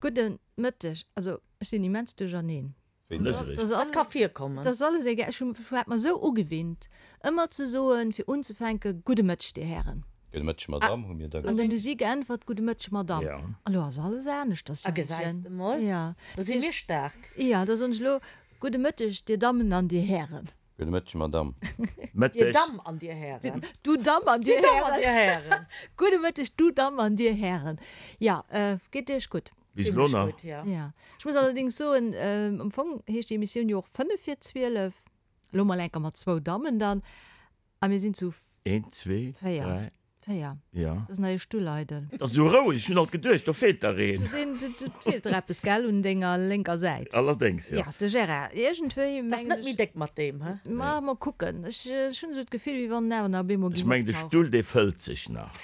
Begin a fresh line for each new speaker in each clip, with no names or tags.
Gudde Mëtteg. Also ech sinn immens duercherneen.
Dat ka virkommen.
Dat ass alles egal. Ech hu hat mer esou ugewinnt, ëmmer ze soen, fir unzefänken, Gudde Mëtteg, Dir Hären.
Gudde Mëtteg, Madamm, hu mir da
gesot. An dann hu si geäntwert, Gudde Mëtteg, Madamm. A lo ass alles aneschters.
A gesäis de mol, do si mir staark.
Jo, da soen ech elo, Gudde Mëtteg, Dir Dammen an Dir Hären.
Gudde Mëtteg, Madamm.
Mëtteg. Dir Damm an Dir Hären.
Du Damm an Dir Hären. Gudde Mëtteg, du Damm an Dir Hären. Jo, geet Iech gutt?
Bis elo nach.
Gutt, jo.
Jo. Ech muss allerdéngs soen, am Fong heescht déi Emissioun jo och 5 vir 12. Elo mol enker mat zwou Dammen dann. A mir sinn zu.
Eent, zwee, dräi.
4.
Ja.
Dat ass nach ee Stull eidel.
Dat ass esou roueg, ech hunn alt geduecht, do feelt der een.
Do sinn, do feelt der eppes, gell, un denger lénker Säit.
Allerdéngs, jo.
Ja, de Gérard, iergendwéi
mengen ech. Ass net méi déck mat deem, he?
Ma, mol kucken. Ech, ech hunn esou d'Gefill, wéi wann en awer nach op eemol
géing optauchen. Ech mengen, de Stull, dee fëllt sech nach.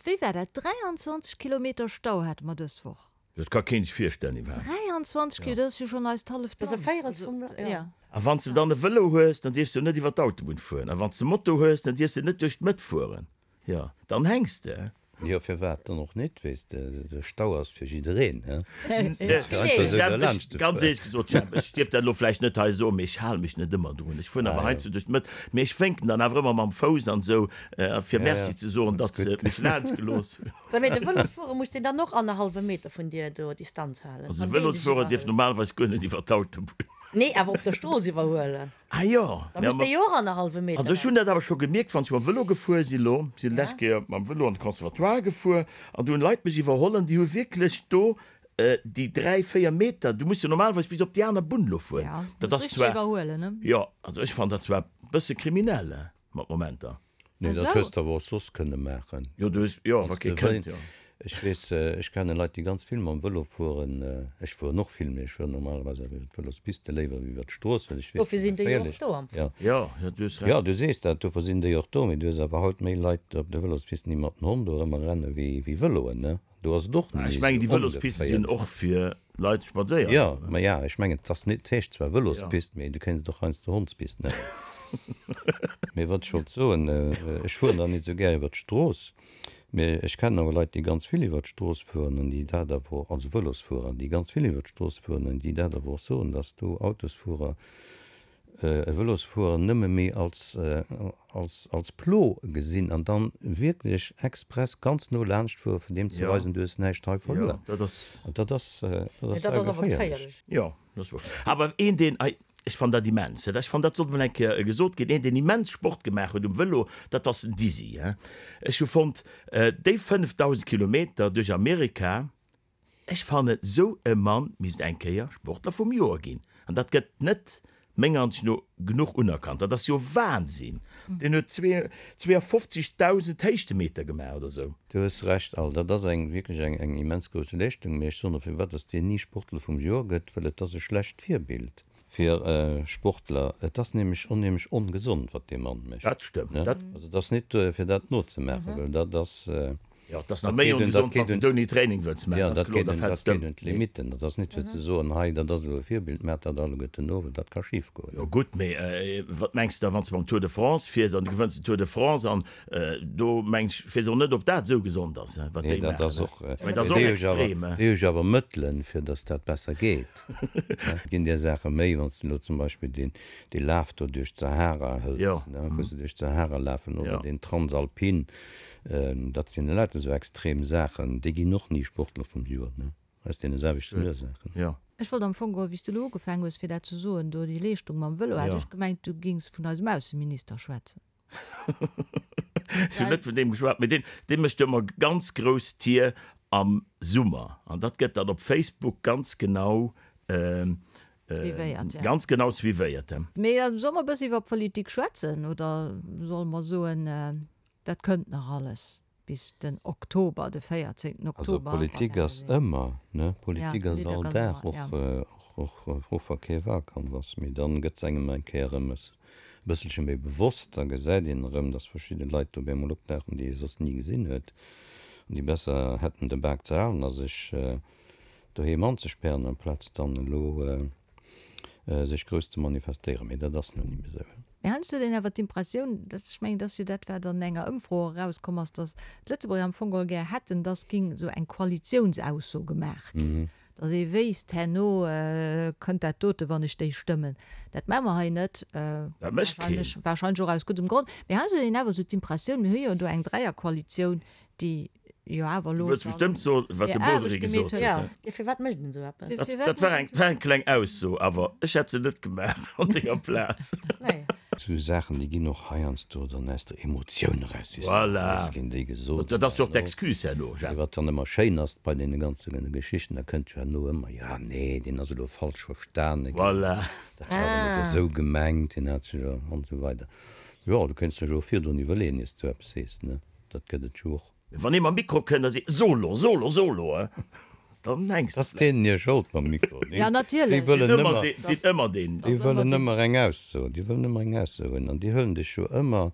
Wéi war dat? 23 Kilometer Stau hate mer dës Woch.
Dat ka keen sech virstellen iwwerhaapt.
23 Kilo, dat ass jo schonn eist halleft
Land. Dat ass e Véirels vum Land, jo.
A wann s de dann e Vëlo hues, dann dierfs de jo net iwwer d'Autobunn fueren. A wann s de Moto hues, dann dierfs de net duerch d'Mëtt fueren. Jo, dann hänks de.
Jo, firwat dann och net, weess de, de Stau ass fir jiddereen, he?
Jemp, ech, ganz éierlech gesot, Jemp, ech dierf dat elo vläicht net hei soen, mee ech hale mech net ëmmer drun. Ech fueren awer heiansdo duerch d'Mëtt, mee ech wénken dann awer ëmmer mam Fouss an esou, fir Merci ze soen, datt se mech laanscht gelooss hunn.
Sou, mee de Vëlosfuerer muss deen dann och annerhallwe Meter vun dir do Distanz halen?
Also de Vëlosfuerer dierf normalerweis guer net iwwer d'Autobunn.
Nee, awer op der Strooss iwwerhuelen.
Ah jo.
Da muss dee jo och annerhallwe Meter
Also ech hunn dat awer scho gemierkt, wann ech mam Vëlo gefuer sinn elo. Ech sinn d'lescht Kéier mam Vëlo an de Conservatoire gefuer an do hunn Leit mech iwwerholl an déi hu wierklech do déi 3, 4 Meter, du muss jo normalerweis bis op déi aner Bunn elo fueren.
Ja,
Dat
muss
ass
richteg
zwar,
iwwerhuelen, ne?
jo, also ech fannen dat zwar e bësse kriminell, mat Momenter.
Nee, dat hues de awer och soss kënne maachen.
Jo, du hues, jo, wa kee kënnt, jo.
Ech weess, ech kenne Leit, déi ganz vill mam Vëlo fueren. Ech fueren och vill, mee ech fueren normalerweis awer iwwer d'Vëlospiste léiwer wéi iwwer d'Strooss, well ech weess,
Dofir sinn déi jo och do am
Fong.
Jo, jo, du hues Recht.
Jo, du sees dat, dofir sinn déi och do, mee du hues awer haut méi Leit op de Vëlospisten, déi mat den Honn do erëmmer renne wéi Vëloen, ne? Do ass et och
net méi Ech mengen, déi Vëlospiste sinn och fir Leit spadséieren.
Jo, ma ja, ech mengen, et ass net, et heescht zwar Vëlospist, mee du kéints et och heiansdo Hondspist nennen. Mee wat ech wollt soen, ech fueren dann net esou gär iwwer d'Strooss, mee ech kennen awer Leit, déi ganz vill iwwer d'Strooss fueren an déi dat awer, also Vëlosfuerer, déi ganz vill iwwer d'Strooss fueren an déi dat awer och soen, dass do Autosfuerer e Vëlosfuerer nëmme méi als, als, als Plo gesinn an dann wierklech express ganz no laanscht fuere fir deem ze weisen, du hues näischt hei verluer.
Jo, dat ass.
An dat ass, dat ass saugeféierlech.
Jo, dat ass wouer. Awer een, deen, ech fannen dat immens, ech fannen dat sollt mol eng Kéier gesot ginn, een, deen immens Sport gemaach huet um Vëlo, dat ass den Dizzy. Ech hu fonnt, déi 5.000 Kilometer duerch Amerika, Ech fannen sou e Mann misst eng Kéier Sportler vum Joer ginn, an dat gëtt net menger Ansicht no genuch unerkannt. Dat ass jo Wahnsinn! Deen huet 52.000 Héichtemeter gemaach oder sou.
Du hues Recht Al, dat ass eng wierklech eng eng immens grouss Leeschtung, mee ech soen och firwat dass deen ni Sportler vum Joer gëtt, well et ass e schlecht Virbild fir Sportler. Et ass nämlech onheemlech ongesond wat dee Mann mécht.
Dat stëmmt, dat.
Also et ass net fir dat nozemaachen, well dat ass.
Jo, et ass nach méi ongesond, wann s de ouni Training wëlls maachen,
ass kloer, da fäls de ëm. Dat geet un d'Limitten. Dat ass net fir ze soen, hei, dat ass elo e Virbild, maacht dat alleguerten no, well dat ka schif goen.
Jo gutt, mee wat mengs de da, wann s de beim Tour de France fiers an du gewënns den Tour de France an do mengs ech, weess och net, ob dat esou gesond ass, wat déi maachen. Mee dat ass och extrem.
Déi hu jo awer Mëttelen, fir datt dat besser geet. Et ginn där Saache méi, wann s de elo zum Beispill deen dee Laf do duerch d'Sahara hëls, wou se duerch d'Sahara lafen, oder deen Transalpin, Dat sinn elauter esou extrem Saachen, déi ginn och ni Sportler vum Joer, ne, aus deene selwechten Ursaachen.
Jo.
Ech wollt am Fong geholl, wéi s de elo ugefaangen hues fir dat ze soen, do déi Leeschtung mam Vëlo, hat ech gemengt, du gings vun eisem Ausseminister schwätzen.
Ech hunn net vun deem geschwat, mee deen, dee mécht jo ëmmer ganz grouss Tier am Summer an dat gëtt dann op Facebook ganz genau,
Suivéiert, ja.
ganz genau suivéiert.
Mee solle mer e bësse iwwer Politik schwätzen oder solle mer soen, Dat kënnt nach alles bis den Oktober, de 14
Also
Oktober.
Politik ass ëmmer, ne? Politik ass all Dag, och och wa kee Wahlkampf ass. Mee dann gëtt se engem eng Kéier erëm e bësselche méi bewosst, da gesäit een erëm, datt verschidde Leit do op eemol opdauchen, déi ee soss ni gesinn huet an déi besser hätten de Bak ze halen a sech doheem anzespären, amplaz dann elo sech grouss ze manifestéieren. Mee dat ass nun ni méi esou.
Mee heiansdo huet een awer d'Impressioun, dass, ech mengen, et ass jo dat, wat an enger Ëmfro och erauskomm ass, dass d'Lëtzebuerger am Fong geholl gär hätten, dass géing esou eng Koalitiounsausso gemaach ginn, dass ee wéisst, herno kënnt dat dote, wann ech déi stëmmen. Dat maache mer hei net,
Dat mécht keen.
wahrscheinlech, wahrscheinlech och aus guddem Grond. Mee heiansdo huet een awer esou d'Impressioun, mir hu jo do eng Dräierkoalitioun, déi jo awer
Du
elo
wëlls bestëmmt soen, wat de
hir
Bodry
Aarbecht gemeet
gesot
huet.
huet,
Jo,
he?
jo, firwat mécht een esou eppes?
Dat,
Firwat
dat war
mécht
eng, war eng kleng Ausso, awer ech hätt se net gemaach an denger Plaz.
Nee.
Sou Saachen, déi ginn och heiansdo dann aus der Emotioun eraus, wéi s de
Voilà.
sees, ginn déi gesot.
Dat ass jo och d'Excuse herno,
Mee
Jacques.
wat dann ëmmer schéin ass bei deene ganze Geschichten, da kënnt jo herno ëmmer, jo, nee, deen ass elo falsch verstane ginn,
Voilà.
dat war awer net esou gemengt, deen hat sech jo, an esou weider. Jo, du kéints dech och virdrun iwwerleeën, ier s du eppes sees, ne? Dat gëtt et jo och.
Wann ee mam Mikro kënnt a seet, Solo, Solo, Solo, dann hänks
de. T'ass deenen hir Schold mam Mikro.
Ja, natierlech.
Déi wëllen ëmmer,
Sinn ëmmer deen.
déi wëllen ëmmer eng Ausso, déi wëllen ëmmer eng Ausso hunn an déi huelen dech jo ëmmer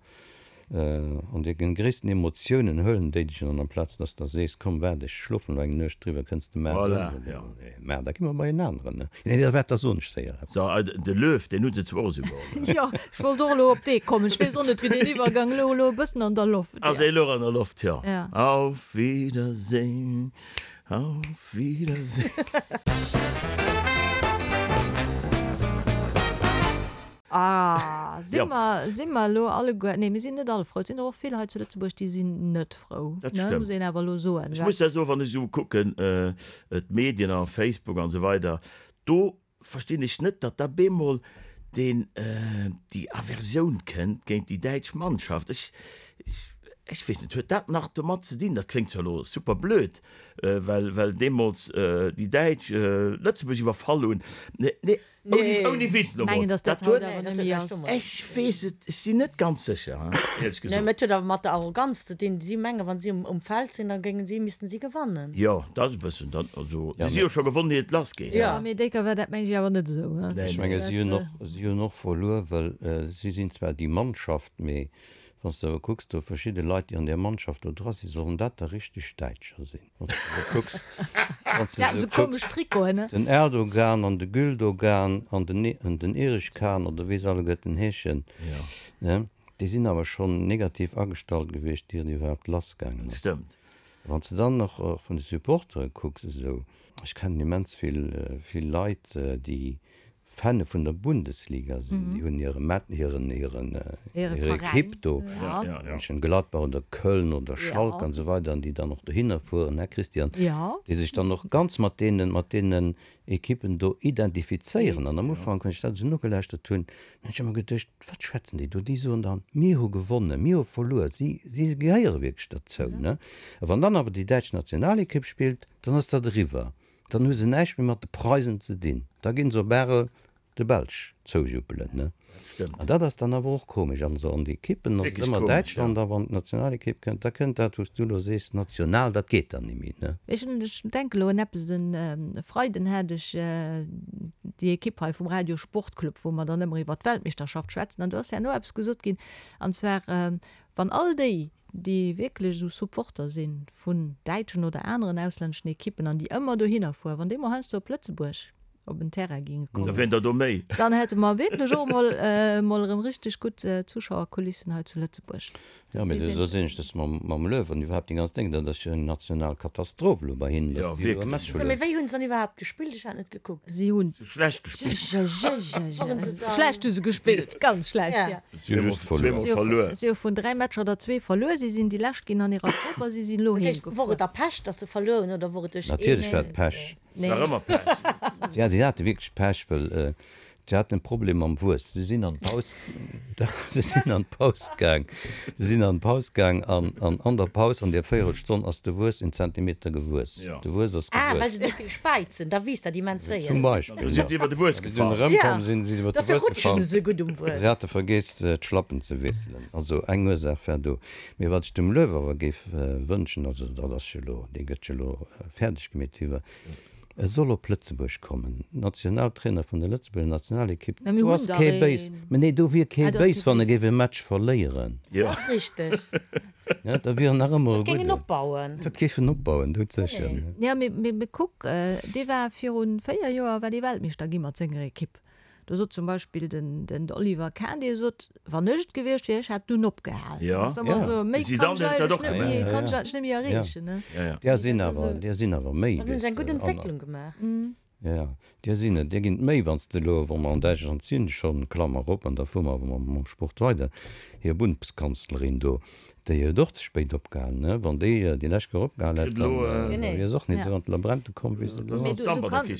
an de gréissten Emotiounen huelen déi dech an amplaz dass de sees, komm waart ech schlofen elo eng Nuecht driwwer, kënns de mar
Voilà,
erëm.
jo.
Mä da gi mer bei en aneren, ne? Nee, da waart, da soen ech séier eppes.
So, de Löw, deen hu se zwar och esou geholl.
Jo, ech wollt och elo op dee kommen. Ech weess och net, wéi deen Iwwergang elo elo e bëssen an der Loft.
Ass e elo an der Loft, jo.
Ja.
Auf Wiedersehen, auf Wiedersehen.
Ah, si
Ja.
mer, si mer elo alleguer, nee, mir sinn net all frou. Et sinn der och vill hei zu Lëtzebuerg, déi sinn net frou,
Dat
ne,
stëmmt.
muss een awer elo soen.
Ech muss da soen, wann ech esou kucken, d'Medien a Facebook an esou weider, do verstinn ech net, datt da bemol deen, déi Aversioun kënnt géint déi däitsch Mannschaft. Ech, ech weess net, huet dat nach domat ze dinn, dat kléngt zwar elo super blöd, well, well deemools déi Däitsch Lëtzebuerg iwwerfall hunn, nee,
Nee.
Ouni Witz elo
Mengen,
mol.
dass dat
Dat huet.
haut awer
Nee,
net
dat
méi
huet
ass.
näischt domat
Ech
ze dinn.
weess et, ech sinn net ganz sécher, éierlech
Nee,
gesot.
mee et huet awer mat der Arroganz ze dinn. Si mengen, wa si um Feld sinn, da géingen si, missten si gewannen.
Jo, dat ass e bëssen dat. Also,
Ja,
si si
mee.
jo scho gewonnen, ier et lass geet.
Ja.
Mee déi war dat meng ech awer net esou, he?
Nee,
Ech
nee.
menge si hunn
Dat,
och, si hunn och verluer, well si sinn zwar déi Mannschaft, mee wann s de awer kucks, do verschidde Leit, déi an där Mannschaft do dra sinn, sollen dat da richteg Däitscher sinn? Wann s de kucks, wann s
Déi haten
de
esou
kucks,
komesch Trikoten, ne?
den Erdogan an de Güldogan an den an den Erich Kahn oder wéi se alleguerten heeschen, ne, déi sinn awer schonn negativ agestallt gewiescht, ier et iwwerhaapt lassgaangen ass.
Stëmmt.
Wann s de dann och vun de Supportere kucks esou, ech kennen immens vill vill Leit, déi Fane vun der Bundesliga sinn, déi hunn hire Met, hiren, hiren,
Hire
hir Ekipp
Veräin,
do,
ja.
Mönchengladbach oder Köln oder Schalke an esou weider, an déi dann och dohinner fueren, hä Christian,
Ja.
déi sech dann och ganz mat deenen, mat deenen Ekippen do identifizéieren. An am Ufank, wann ech dat esou nogelauschtert hunn, hunn ech ëmmer geduecht, wat schwätzen déi do? Déi soen dann, mir hu gewonnen, mir hu verluer. Si, si gehéiere wierklech derzou, ne? A wann dann awer déi däitsch Nationalekipp spillt, dann ass dat eriwwer. Dann hu se näischt méi mat de Preisen ze dinn. Da ginn se op Arel de Belsch zoujuppelen, ne? An dat ass dann awer och komesch. Also an de Ekippen ass et
Wierklech
ëmmer
komesch,
Däitschland,
ja.
a wann d'Nationalekipp kënnt, da kënnt dat, wou s du elo sees, national, dat geet dann ni méi, ne?
Ech denke elo un eppes, E Freiden hat ech déi Ekipp hei vum Radio Sportclub, wou mer dann ëmmer iwwer d'Weltmeeschterschaft schwätzen, an do ass herno eppes gesot ginn, an zwar, wann all déi, déi wierklech esou Supporter si vun däitschen oder aneren auslänneschen Ekippen an déi ëmmer dohinner fueren, wann déi mol heiansdo op Lëtzebuerg op en Terrain géinge
Da
kommen,
wieren der do méi.
dann hätte mer wierklech och emol emol erëm richteg gutt Zuschauerkulissen hei zu Lëtzebuerg.
Jo, mee do sinn ech dës mam mam Löw an iwwerhaapt déi ganz Déng, dat ass jo eng national Katastroph elo bei hinnen,
Jo,
datt si elo e
wierklech.
Match
So, mee
verluer.
wéi hunn se dann iwwerhaapt gespillt? Ech hat net gekuckt.
Si hunn.
Schlecht gespillt.
Waren se dann.
Schlecht hu se gespillt, ganz schlecht,
Ja.
ja.
Si hu just verluer.
Zweemol verluer.
Si hu vun 3 Matcher der zwee verluer. Si sinn déi lescht ginn an hirer Grupp a si sinn elo
Dat heescht, wor
heemgefuer.
et da Pech, datt se verluer hunn oder wor et duerch een.
Natierlech war et Pech.
Nee.
War ëmmer Pech.
Ja, si hate wierklech Pech, well si haten e Problem mam Wuess. Si sinn an d'Paus, si sinn an d'Paus gaang, si sinn an d'Paus gaang an an an der Paus, an där Véierelstonn ass de Wuess en Zentimeter gewuess. De Wuess ass
Ah, well
gewuess.
se esou vill späizen, da wiisst dat immens séier.
Zum Beispill,
Da sinn se iwwer de Wuess
Wéi se dunn
gefall.
erëmkomm sinn, si se iwwer de
Dofir
Wuess
rutschen
gefall.
se esou gutt um Wuess.
Si hate vergeess, d'Schlappen ze wiesselen. Also eng Ursaach war do. Mee wat ech dem Löw awer géif wënschen, also dat ass jo elo, dee gëtt jo elo fäerdeg gemeet iwwer, e soll op Lëtzebuerg kommen, Nationaltrainer vun der Lëtzebuerger Nationalekipp,
Mä mir
do
hunn
ass
der
kee béis,
een.
mä nee, do wier kee
Ah, do ass
béis,
kee
wann e
béis.
géif e Match verléieren.
Jo.
Dat ass richteg.
Ja, da wier en nach ëmmer e
Dat géing en
gudden.
opbauen.
Dat géif en opbauen, doudsécher.
Ja, mee, mee, mee kuck, dee war virun 4 Joer war dee Weltmeeschter gi mat senger Ekipp. Do sot zum Beispill den den Oliver Kahn, dee sot, wann ech et gewiescht wier, ech hätt dunn opgehal.
Ja.
Ass ëmmer
Ja.
esou, méi
De
kann
Zidane
ech
huet dat
eigentlech
och
net méi,
gemaach.
kann ech eigentlech net méi erreechen, ne.
Ja, ja.
Där sinn awer, där sinn awer méi,
Dann hunn
weess
se eng gutt
de. An,
Entwécklung gemaach.
ja, där sinn et, där ginn et méi, wann s de elo, wa mer an Däitschland sinn, schonn, Klammer op, an da fuere mer awer mam, mam Sport weider, hir Bundeskanzlerin do, Déi huet och ze spéit opgehalen, ne? Wann déi déi lescht Kéier opgehal hätt, dann wier se och net esou an d'Labrente komm, wéi se elo ass.
Mee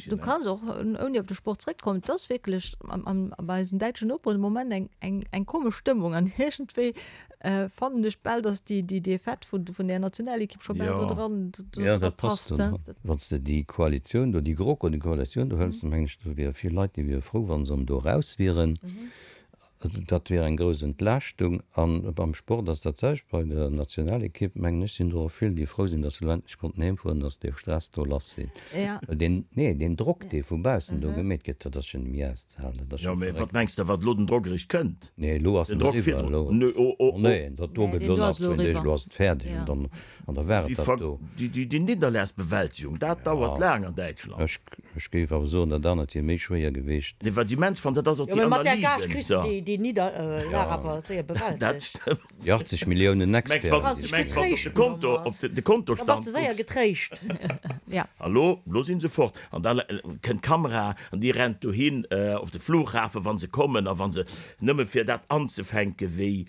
du kanns och, ouni op de Sport zréckzekommen, et ass wierklech bei eisen däitschen Noperen de Moment eng komesch Stëmmung an iergendwéi fannen ech bal, datt déi Defaite vun där Nationalekipp scho bal do dran passt.
Wann s de déi Koalitioun do, déi GroKo, déi Koalitioun do hëls, da mengen ech, do wiere vill Leit, déi wiere frou, wa se do eraus wieren. Dat wier eng grouss Entlaaschtung. A beim Sport ass dat selwecht. Bei der Nationalekipp, mengen ech, sinn do och vill, déi frou sinn, datt se elo endlech konnten heem fueren, datt dee Stress do lass sinn. Well deen, nee, deen Drock, dee vu baussen do gemeet gëtt, dat ass jo net méi auszehalen. Dat ass
Jo,
jo
mee wat
verréckt.
mengs de, wat elo den Drock eréischt kënnt?
Nee, elo ass
Den
en
Drock
eriwwer.
virdrun.
Elo,
Nee, oh, oh,
oh nee, dat do
Nee,
gëtt
deen
elo
do
nach
ass elo
zwéin Deeg,
eriwwer.
elo ass et fäerdeg an
Ja.
dann, an da war et
Déi
dat
Ver,
do.
déi, déi, déi Nidderlagsbewältigung, dat dauert laang an Däitschland.
Ech, ech géif awer soen, dat anert wier méi schwéier geweecht.
Nee, wat ech immens fannen, dat ass och
Jo,
déi
mee mat där Gage
Analysen.
kriss de déi, déi Nidderlag awer séier
Dat
bewältegt.
stëmmt.
Déi 80 Milliounen
Mengs,
Experten,
wann
déi
s
se
de mengs, wann s de op de
Getréischt
Konto,
domat.
op de, de
Da bass
Kontostand
de séier
kucks.
getréischt.
Ja.
A lo, lo si se fort. An da kënnt d'Kamera an déi rennt dohin op de Flughafen, wa se kommen a wa se, nëmme fir dat anzefänken, wéi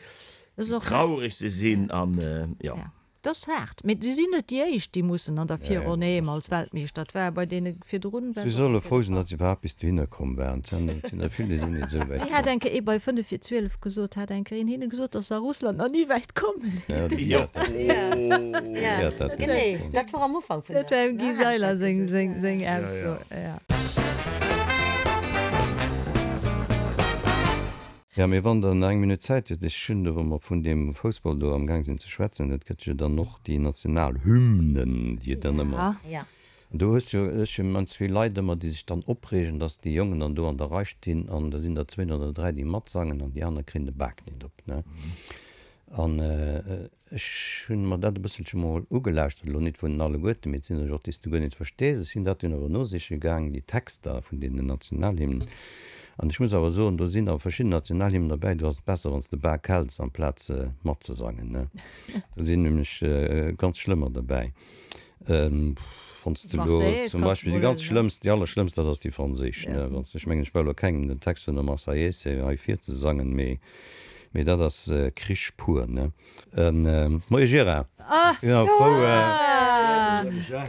traurig se sinn an, jo.
Ja. Dat ass haart, mee si sinn net déi éischt, déi mussen an der Virronn heem als Weltmeeschter. Dat war bei deene virdrun
Si solle frou sinn, datt se iwwerhaapt bis dohinner komm waren. Et sinn der vill, déi sinn net esou wäit
Wéi hat
komm.
eng Kéier ee bei 5 vir 12 gesot, hat eng Kéier een hinne gesot, datt se a Russland nach ni wäit komm sinn.
Ja, de Guy hat dat, de Guy hat dat gesot.
Genee, dat war am Ufank vun
Dat
der
war dem Guy Seiler seng, seng, seng Ausso, ja.
Jo, mee wann Der nach eng Minutt Zäit hutt, ech hunn do, wa mer vun deem Foussball do amgaang sinn ze schwätzen, et gëtt jo dann och déi national Hymnen, déi et dann ëmmer, an do hues jo, ech hunn immens vill Leit ëmmer, déi sech dann opreegen, dass déi Jongen dann do an der Rei stinn an da sinn der zwéin oder dräi, déi matsangen an déi aner kréien de Bak net op, ne. An ech hunn mer dat e bësselche mol ugelauschtert, elo nit vun alleguerten, mee et sinn der jo och, déi s de guer nit verstees. Ech sinn dat dunn awer nosiche gaang, déi Texter vun deenen Nationalhymnen. An ech muss awer soen, do sinn awer verschidden Nationalhymnen derbäi, do ass et besser, wann s de Bak häls, amplaz matzesangen, ne. Do sinn nämlech ganz schlëmmer derbäi. Wann s de elo zum Beispill déi ganz schlëmmst, déi allerschlëmmst, dat ass déi franséisch, ne. Wann s de, ech mengen, ech brauch elo kengem den Text vun der Marseillaise hei virzesangen, mee Mee dat ass Krich pur, ne? Moie Gérard!
Ah, frou.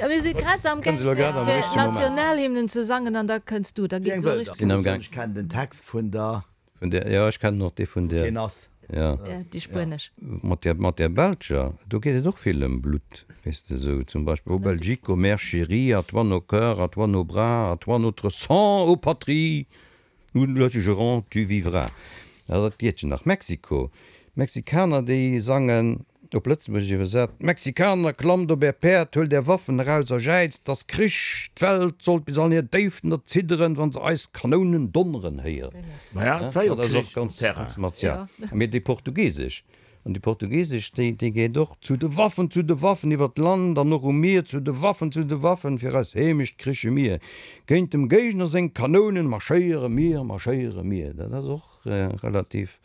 Mir si grad am gaang fir d'Nationalhymnen ze sangen an da kënns du. Da geet elo richteg
lass.
Ech kennen den Text vun der.
Vun der, jo, ech kennen och dee vun der.
Ween ass.
Jo.
Déi spuenesch.
Mat der, mat der belscher, do geet et och vill ëm Blutt, weess de, esou zum Beispill, O Belgique, ô mère chérie, à toi nos cœurs, à toi nos bras, à toi notre sang, ô patrie! Nous le jurons, tu vivras. Also dat geet jo nach. Mexiko, D'Mexikaner déi sangen, op Lëtzebuergesch iwwersat, Mexikaner, klammt op är Päerd, huelt är Waffen eraus a jäizt, 't ass Krich! D'Welt sollt bis an hir Déiften erzidderen, wann se eis Kanounen donneren héieren.
Maja, et war jo
Dat ass och
Krich um
ganz,
Terrain.
ganz martial. Mee déi portugiesesch, An déi portugiesesch, déi, déi geet och, Zu de Waffen, zu de Waffen, iwwer d'Land an och um Mier, zu de Waffen, zu de Waffen, fir eis Heemecht kriche mir. Géint dem Géigner seng Kanounen marschéiere mir, marschéiere mir. Dat ass och relativ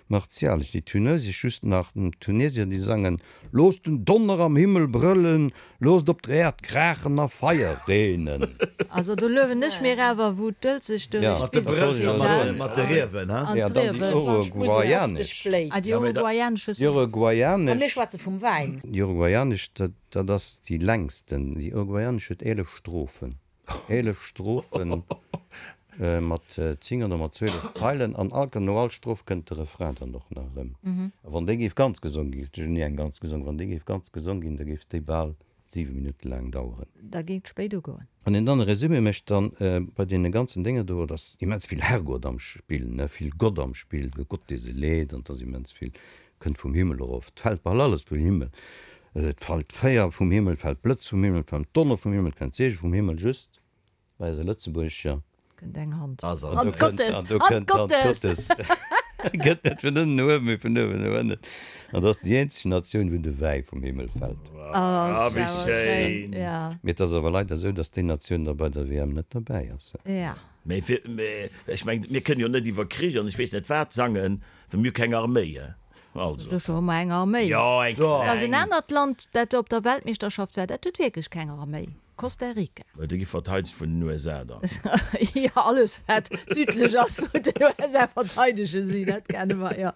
martialesch. Déi tunesesch just nach, d'Tunesier, déi sangen, Loosst den Donner am Himmel brëllen, Loosst op der Äerd kraachen a Feier reenen.
Also do luewen ech mir awer wou d'Dëlzeg duerch
Mat de
d'Wiss
Brëll a
geet,
mat
ha?
de, mat de Riewen, ha?
An
Ja, dann déi
d'Riewen.
uruguayanesch.
Ah, déi uruguayanesch hues
Déi
du.
A mir
uruguayanesch,
schwätze vum Wäin.
déi uruguayanesch, dat, dat ass déi längsten. Déi uruguayanesch huet 11 Strophen. 11 Strophen mat 10 oder mat 12 Zeilen an all, no all Stroph kënnt de Refrain dann och nach erëm. A wann déi géif ganz gesong ginn, ech hunn ni eng ganz gesong, wann déi géif ganz gesong ginn, da géif déi bal 7 Minutte laang daueren.
Da géing et spéit ugoen.
Wann een dann e Résumé mécht, dann bei deene ganzen Dénger do, et ass immens vill Herrgott am Spill, ne, vill Gott am Spill, de Gott dee se leet an et ass immens vill Kënnt vum Himmel erof. 't fält bal alles vum Himmel. Et fällt Féier vum Himmel, 't fällt Blëtz vum Himmel, 't fällt Donner vum Himmel, 't kënnt Seege vum Himmel, just bei eiser Lëtzebuergescher.
Kënnt eng Hand.
An
Hand
do kënnt
Gottes!
an do
Hand
kënnt d'Hand
Gottes!
Gottes. Gëtt net vun ënnen no uewen, mee vun uewen no ënnen. An dat ass déi eenzeg Natioun, wou de Wäi vum Himmel fält.
Oh,
wéi schéin!
Mee et ass awer leider esou, datt déi Natioun da bei der WM net derbäi ass.
Mee fir, mee ech mengen, mir kënnen jo net iwwer Krich an ech weess net wat sangen, well mir hu keng Arméi, hein. Also.
Sécher hu mer eng Arméi.
Jo, eng kleng.
Et ass en anert Land, dat op der Weltmeeschterschaft war, dat huet wierklech keng Arméi. Costa Rica.
Mä do gi verteidegt vun den USA dann.
Jo, alles wat südlech ass vun den USA verteidege si, dat kenne mer, jo.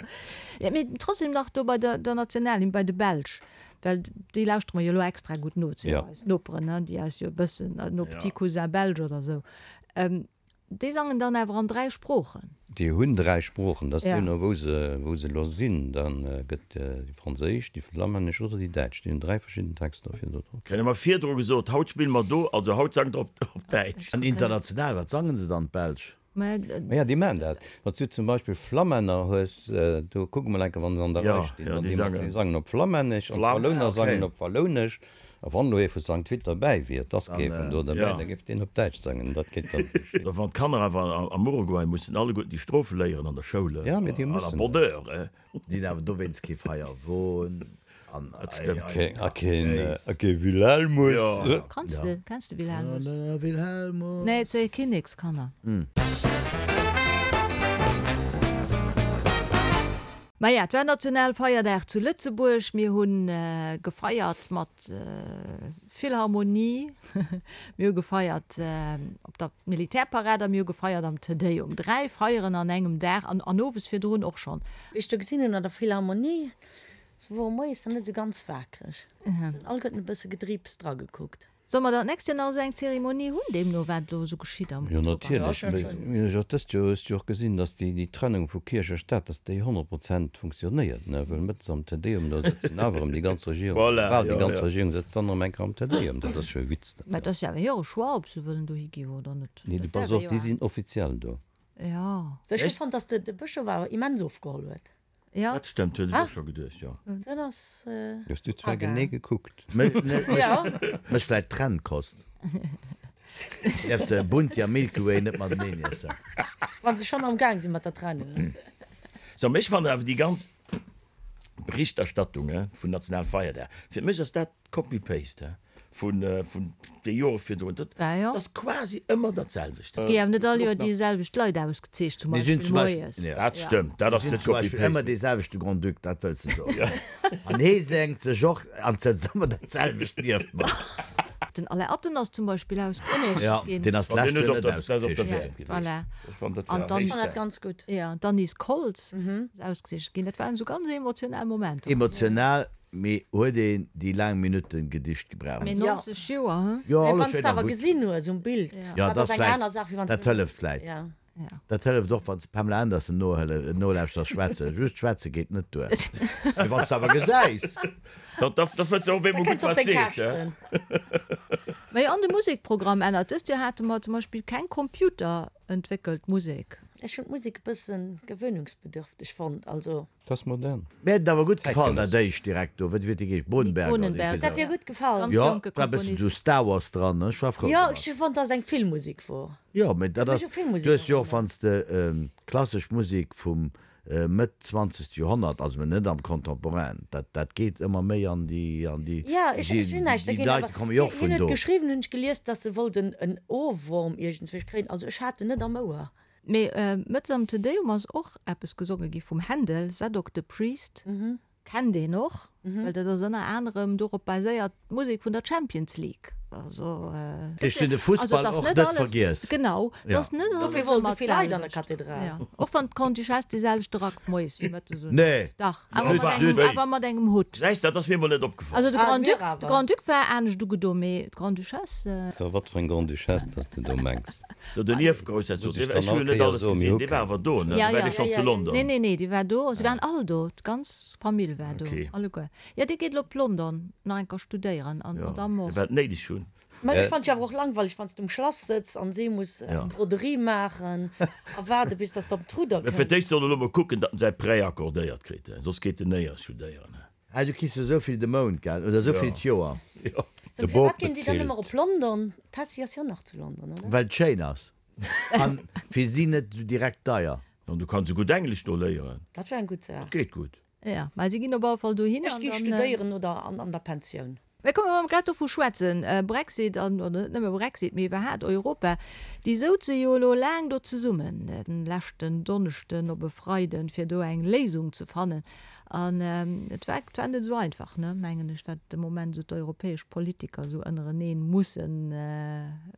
Mee trotzdem nach do bei der Nationalhymn, bei de Belsch, well déi lauschtere mer jo elo extra gutt no, et sinn jo eis Noperen, ne, déi eis jo e bëssen, nos petits cousins belges oder esou. Déi sangen dann awer an 3 Sproochen.
Déi hunn 3 Sproochen, dat ass deemno wou se wou se elo sinn. Da gëtt déi franséisch, déi flammännesch oder déi däitsch. Déi hunn 3 verschidden Texter fir do drop.
Kréie mer virdru gesot, haut spille mer do, also haut sangt der op Däitsch.
An international, wat sangen se dann, d'Belsch?
Maja, déi maachen dat. Wann s du zum Beispill Flammänner hues, do kuck emol eng Kéier, wa se an der Rei stinn, dann déi mat, déi sangen op Flammännesch an d'Wallouner sangen op Wallounesch. A wann elo ee vu Sankt Vith derbäi wier, et ass kee vun do derbäi, da géif deen op Däitsch sangen. Dat geet dann esou schéin.
A wann d'Kanner awer am Uruguay mussen alleguerten déi Strofe léieren an der Schoul,
Ja, mee déi
à la
mussen
bonne
dat.
heure.
Déi hunn awer dowéinst kee Feierwon an
Dat stëmmt.
Kee, a keen, a kee Wilhelmus.
Jo.
Kanns de, kenns de Wilhelmus?
Wilhelmus.
Nee, et si Kinnekskanner. Maja, et war Nationalfeierdag zu Lëtzebuerg. Mir hu gefeiert mat Philharmonie, mir hu gefeiert op der Militärparad a mir hu gefeiert am Te Deum. 3 Feieren an engem Dag an an owes virdrun och schonn.
Wéi ech do gesinn hunn an der Philharmonie, se wore moies nach net esou ganz waakreg, se hunn alleguerten e bësse gedriips dragekuckt.
Solle mer dann d'nächst Joer nach esou eng Zeremonie hunn, deemno wat elo esou geschitt am
Jo,
Oktober?
natierlech. Mee ech och dëst Joer hues du jo och gesinn, datt déi, déi Trennung vu Kierch a Staat, datt déi 100 Prozent funktionéiert, ne? Well mëttes am Te Deum, do sëtzen awer erëm déi ganz Regierung,
Voilà,
bal déi
jo,
ganz
jo.
Regierung sëtzt dann erëm eng Kéier am Te Deum. Dat ass jo e Witz, dat
Mä et
jo.
ass jo awer hire Choix, ob se wëllen dohi gi oder net.
Nee, du
Dat
pass
däerf
op,
ee jo
déi
awer.
sinn offiziell do.
Jo.
Ech hu fonnt, datt de Bëschof awer immens ofgeholl huet.
Ja.
Dat stëmmt, huet ech och scho geduecht, jo.
Dat ass.
Hues du zwar genee gekuckt.
Mech vläit d'Trenn kost. Däerfs de Bunti a Milky Way net mateneen iessen.
Wann se schonn am Gaang si mat der Trennung.
So, mee ech fannen awer déi ganz Berichterstattung vun Nationalfeierdag, fir mech ass dat Copy-paste vun de Jore virdrun. Dat ass quasi ëmmer dat selwecht.
Et gi awer net all Joer déi selwecht Leit ausgezeecht, zum Beispill moies.
Dat stëmmt, dat ass net
Copy-paste. Ëmmer dee selwechte Grand-Duc, dat wëlls de soen. An hee sengt sech och an sëtzt ëmmer dat selwecht nieft mer.
Den Alain Atten ass zum Beispill ausgezeecht ginn.
Deen ass d'lescht Joer net ausgezeecht
ginn. Voilà.
An dat ganz gutt.
Jo, d'Anise Koltz ass ausgezeecht ginn. Dat waren esou ganz emotional Momenter.
Emotional Mee huet een déi laang Minutten Gedicht gebraucht?
Mee 90 Joer,
he? Jo,
Mee
alles
wann s
schéin
de
a
awer
gutt.
gesinn hues um Bild,
Jo,
dat
dat
ass eng
vläit,
aner Saach, wéi wann s
dat
de.
hëlleft vläit.
Ja.
Dat hëlleft och, wann s de Pamela Anderson nohëlle, nolauschters schwätzen. Just schwätze geet net duer. Mee wann s de awer gesäis.
Da, da, da fënns de och op
Da
eemol
kënns
gutt,
op
wat
deng
seet, he?
Käschten.
Mee an de Musekprogramm ännert. Dëst Joer hate mer zum Beispill keng computerentwéckelt Musek.
Ech hunn d'Musek e bëssen gewöhnungsbedürfteg fonnt, also.
Dat ass modern.
Mir huet et awer gutt gefall, dat éischt direkt do, wéi huet déi geheescht, Bohnenberger oder
Bohnenberger.
Huet dat dir gutt gefall?
Ganz
Jo,
jonke
war e bëssen
Komponist.
esou Star Wars dran, ech war frou
Jo,
domat.
ech hu fonnt, dass et eng Filmmusek wor.
Jo, mee dat
Huet
ass,
mech u Filmmusek
du hues jo och,
erënnert.
wann s de klassesch Musek vum Mëtt zwanzegste Joerhonnert, also mä net am Contemporain, dat dat geet ëmmer méi an déi, an déi,
Jo, ech ech hunn näischt
déi
dergéint,
Leit
awer
komme jo och
hien
vun
huet
do.
geschriwwen, hunn ech gelies, dass e wollt en en Ohrwurm iergendswéi kréien, also ech hat en net am Ouer.
Mee mëttes am Te Deum ass och eppes gesonge gi vum Händel, Zadok the Priest, kennt een och, well dat ass ënner anerem dorop baséiert d'Musek vun der Champions League. Also
Ech hunn de Fussball och net vergiess.
Genau, et ass net alles
Dofir wollt
ëmmer
esou vill Leit an der
d'selwecht.
Kathedral.
Jo, och wann d'Grande-Duchesse dee selwechte Rack moies wéi mëttes un
Nee.
huet. Dach, awer mat engem, awer mat engem Hutt.
Säis, dat ass mir emol net opgefall.
Also de
Ah,
Grand-Duc,
mir
de
awer.
Grand-Duc war anescht ugedo, mee d'Grande-Duchesse.
So, wat fir eng Grande-Duchesse, dass de do mengs.
So den Ierfgroussherzog,
Muss ech
dee, ech
dann
hu jo
all
net
Kéier
alles
soen, mir
gesinn,
hu
dee war
keng.
awer do, ne?
Ja,
Dee war
ja.
dee schonn
Ja,
zu
ja,
London?
Nee, nee, nee, déi war do. Se waren all do, d'ganz Famill war do,
Okay.
alleguer. Jo, dee geet elo op London nach eng Kéier studéieren an
Ja,
d'Madame
dee
och.
war et néideg hunn.
Mä ech fannt jo awer och langweileg, wann s de um Schlass sëtz an si muss
Ja.
eng Broderie maachen a waarde bis dass de op d'Rudder
Mä fir
kënns.
d'éischt soll e lo mol kucken, datt en säi Prêt accordéiert kritt, soss geet en néier studéieren.
Ah, du kriss jo esou vill de Mount, gell? Oder esou vill d'Joer.
Jo.
So,
De
firwat
Bop
ginn déi dann ëmmer
bezilt.
op London? D'Tessy ass jo nach zu London, oder?
Well et schéin ass. An fir si net esou direkt deier.
An du kanns esou gutt Englesch do léieren.
Dat wär eng gutt Saach.
Dat geet gutt.
Jo, mä si ginn op alle Fall dohin.
Ech gi studéieren oder an der Pensioun.
Mä komm, wa mer grad dovu schwätzen, Brexit an, oder net nëmme Brexit, mee iwwerhaat Europa, déi souze jo elo laang do zesummen, den leschten Donneschden op e Freiden, fir do eng Léisung ze fannen. An et war, et war net esou einfach, ne, mengen ech, wat de Moment esou d'europäesch Politiker esou ënnereneen mussen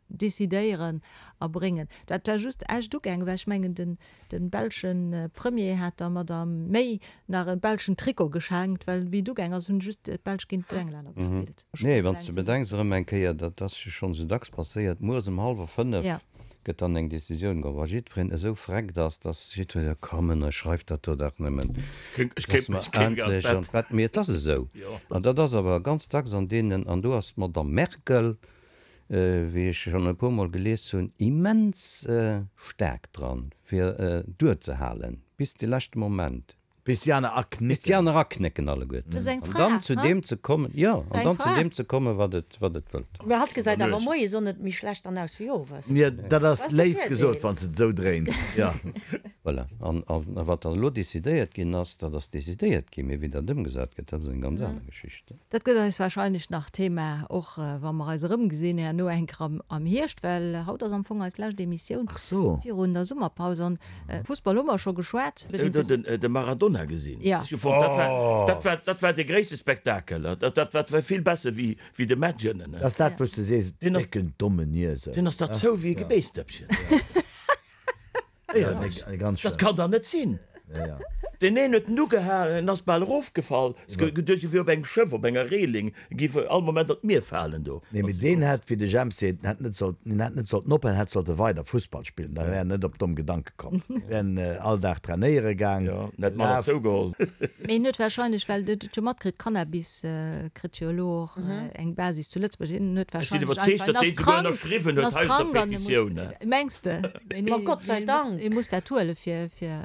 decidéieren a bréngen. Dat war just echt ugaangen, well ech mengen, den, Den belschen Premier hat der Madame May nach e belschen Trikot geschenkt, well wéi et ugaang ass, hunn just d'Belsch géint d'Englänner gespillt.
Nee, wann s de bedenks erëm eng Kéier, dat ass jo schonn esou dacks passéiert, mueres ëm hallwer 5 gëtt dann eng Decisioun geholl, wa jiddwereen esou freckt ass, dass jiddwereen seet, komm, ënnerschreift dat do dach nëmmen, dass mer endlech an d'Bett. Mee et ass esou. An dat ass awer ganz dacks an deenen, an do ass d'Madame Merkel, wéi ech schonn e puermol gelies hunn, immens staark dran, fir duerzehalen bis de leschte Moment.
Bis déi aner aknécken.
Bis déi aner aknécken alleguerten. An dann zu deem ze kommen, jo, an dann zu deem ze kommen, wat et, wat et wëllt.
Mä hatt gesäit awer moies och net méi schlecht an aus wéi owes.
Jo, dat ass léif gesot, wann s de et esou dréins, jo.
Voilà. An, a wat dann elo decidéiert ginn ass, dat ass decidéiert ginn, mee wéi dat ëmgesat gëtt, dat ass eng ganz aner Geschicht.
Dat gëtt eis wahrscheinlech nach Thema, och wa mer eis erëmgesinn herno eng Kéier am Hierscht, well haut ass am Fong eis lescht Emissioun virun der Summerpaus. An Fussball hu mer scho geschwat.
Hutt Der de Maradona gesinn? Ech hu fonnt, dat war, dat war, dat war de gréisste Spektakel. Dat, dat, dat war vill besser wéi, wéi de Match ënnen.
Dat ass dat, wou s de sees, décken dommen Iesel.
Deen ass der zou wéi e Geméisdëppchen. Dat kann dach net sinn! Deen een huet en ugehalen, en ass bal erofgefall, geduecht, e wier op engem Schëff, op enger Reeling, e géif all Moment an d'Mier falen do.
Nee, mee deen hätt, wéi de Jemp seet, hätt net sollten, en hätt net sollten ophalen, hätt sollte weider Fussball spillen, da wär en net op domm Gedanke komm. Wär en all Dag trainéiere gaang,
Jo, en hätt manner
gelaf.
zougeholl.
Mee en huet wahrscheinlech, well en huet jo matkritt, Cannabis kritt jo elo och eng Basis zu Lëtzebuerg, en huet
Ech sinn
wahrscheinlech
iwwerzeegt,
einfach, en
datt
ass
deen souguer
krank,
ënnerschriwwen
en
huet
ass
hei op der
krank an e muss,
Petitioun.
mengs de?
Ma Gott sei Dank!
Ee muss dat huelen, fir, fir.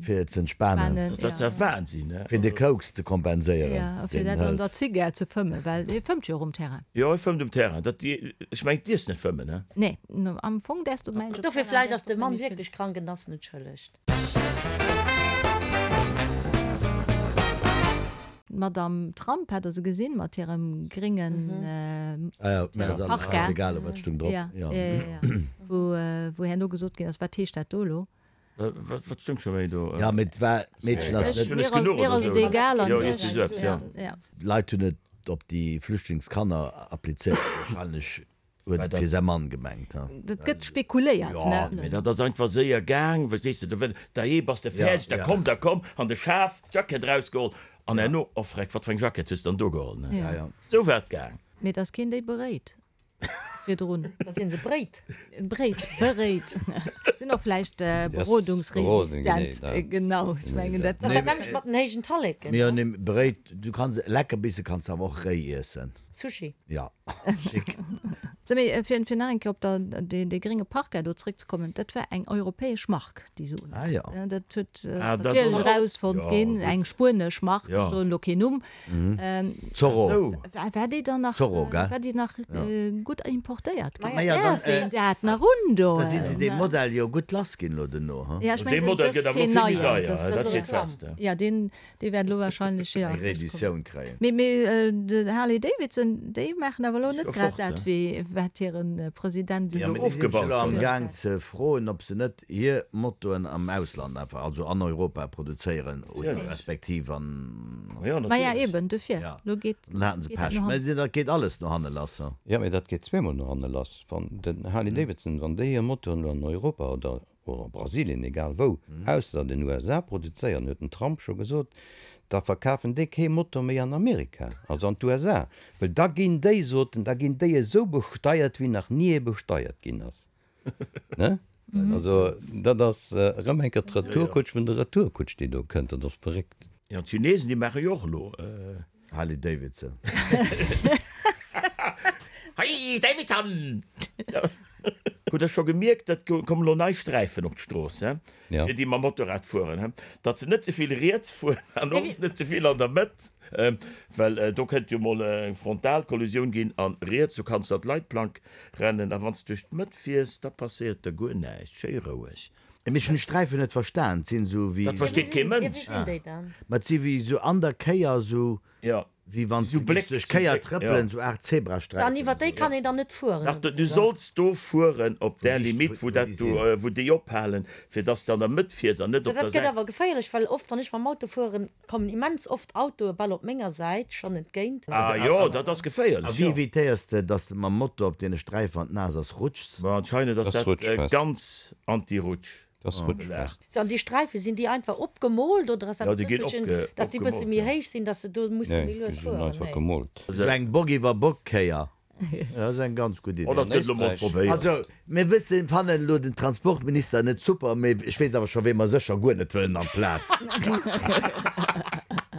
Fir ze entspanen.
Dat ass ja Wahnsinn, ne?
Fir de Koks ze kompenséieren,
Ja, fir
deen
dat an
hëlt.
der Zigar ze fëmmen, well hie fëmmt jo och um Terrain.
Jo, hie fëmmt um Terrain. Dat, ech mengen, dierfs net fëmmen, ne?
Nee, am Fong däerfs du, mengen ech, op
Dofir
Terrain
vläicht
däerfs
ass de
du
Mann
net méi
wierklech krank en ass net schëlleg.
D'Madame Trump hat der se gesinn mat hirem gréngen
Parka.
Wou herno gesot ginn ass, wat heescht dat do elo?
Wat stoung scho méi do?
Jo, mee et war, d'Meedchen ass net.
Mir ass et egal.
D'Leit hunn et op déi Flüchtlingskanner applizéiert, wahrscheinlech Huet et fir säi Mann gemengt, ha?
Dat gëtt spekuléiert, ne?
Mee dat ass einfach séier gaang, verstees de, do dajee, bass de fäerdeg, da komm, da komm, an de Schaf, d'Jackett erausgeholl, an herno, oh freck, wat fir eng Jackett hues de dann do geholl, ne? Esou war et gaang.
Mee et ass keen déi beréit virdrun.
Da sinn se bréit.
Bréit, beréit. Sinn och vläicht berodungsresistent. Genau, ech mengen dat.
Dat ass dat nämmlecht mat den héijen Talleken.
Mee jo, nee, beréit, du kanns Leckerbisse kanns de awer och réi iessen.
Sushi.
Ja, schick.
Sou, mee fir fir nach eng Kéier op der dee dee grénge Parka do zréckzekommen, dat war eng europäesch Mark, déi se un
Ah ja.
Dat huet
Ah,
ass
dat
natierlech
och.
erausfonnt
Ja,
ginn,
gutt.
eng spuenesch Mark, ech
Ja.
soen elo keen Numm.
Zorro.
Sou.
War war déi dann nach
Zorro, gell?
war déi nach gutt importéiert ginn?
Ma ja, dann,
Däerf een dat nach undoen?
Da sinn se dee Modell jo gutt lass ginn elo duerno, ha?
Ja, ech
Dee
mengen,
Modell
dat ass
gëtt awer elo
keen
vill méi
neien.
deier,
Dat
dat
ass
steet fest.
Ja, deen Déi wäert elo wahrscheinlech, jo.
Eng Reeditioun kréien.
Mee, mee de Harley Davidson, déi maachen awer elo net grad dat, wéi wat hire President
Jo,
elo.
mee déi sinn scho elo am Gaang ze froen, ob se net hir Motoen am Ausland einfach, also an Europa produzéieren oder respektiv an.
Maja, eben, dofir. Elo geet
Dann haten se
dat
Pech.
no
Mee
hannen.
dat geet alles no hanne lass.
Jo, mee dat geet zweemol no hanne lass. Wann den Harley Davidson, wann déi hir Motoren elo an Europa oder oder a Brasilien, egal wou, ausser den USA produzéieren, huet den Trump scho gesot, da verkafen déi kee Motor méi an Amerika, also an d'USA, well da ginn déi, sot en, da ginn déi esou besteiert, wéi nach ni ee besteiert ginn ass. Ne? Also dat ass erëm eng Kéier d'Retourkutsch vun der Retourkutsch, déi do kënnt. Dat ass verréckt.
Jo, d'Chinesen, déi maache jo och elo.
Harley Davidson.
Harley Davidson! Hutt der scho gemierkt, et kommen elo nei Sträifen op d'Strooss, he, fir déi mam Motorrad fueren, he, datt se net ze vill riets fueren an och net ze vill an der Mëtt, well do kënnt jo mol eng Frontalkollisioun ginn an riets, do kanns de an d'Leitplank rennen a wann s de duerch d'Mëtt fiers, da passéiert der guer näischt, schéi roueg.
Mee ech hunn d'Sträifen net verstan, et sinn esou wéi.
Dat versteet kee Mënsch.
Ma et si wéi esou an der Kéier esou. Wéi wann s du géifs duerch Kéier trëppelen, sou Aart Zebrasträifen.
An iwwer déi kann een dann net fueren?
Dach, du solls do fueren op där Limite, wou dat do, wou déi ophalen, fir dass de an der Mëtt fiers an net op der
Dat
Säit.
gëtt awer geféierlech, well oft, wann ech mam Auto fueren, kommen immens oft Autoe bal op menger Säit schonn entgéint.
Ah jo, dat ass
A
geféierlech,
wéi
jo.
evitéiers de, dass de mam Moto op deene Sträifen, wann et naass ass, rutschs?
Bon, anscheinend ass dat ganz anti-Rutsch.
Das rutschfest.
So, an déi Sträife, sinn déi einfach opgemoolt oder ass dat
Ja,
e
déi ginn
bësselchen,
opge,
dass déi bësse
opgemoolt,
méi
ja.
héich sinn, dass se do musse
Nee,
méi
déi
lues
sinn
fueren?
einfach
Nee.
gemoolt.
Sou eng Bock iwwer Bock Kéier, dat ass eng ganz gutt
Oh,
Idee.
dat
An
gëtt elo mol
Éisträich.
probéiert.
Also, mir wëssen, fannen elo den Transportminister net super, mee ech weess awer scho wee mer sécher guer net wëllen amplaz.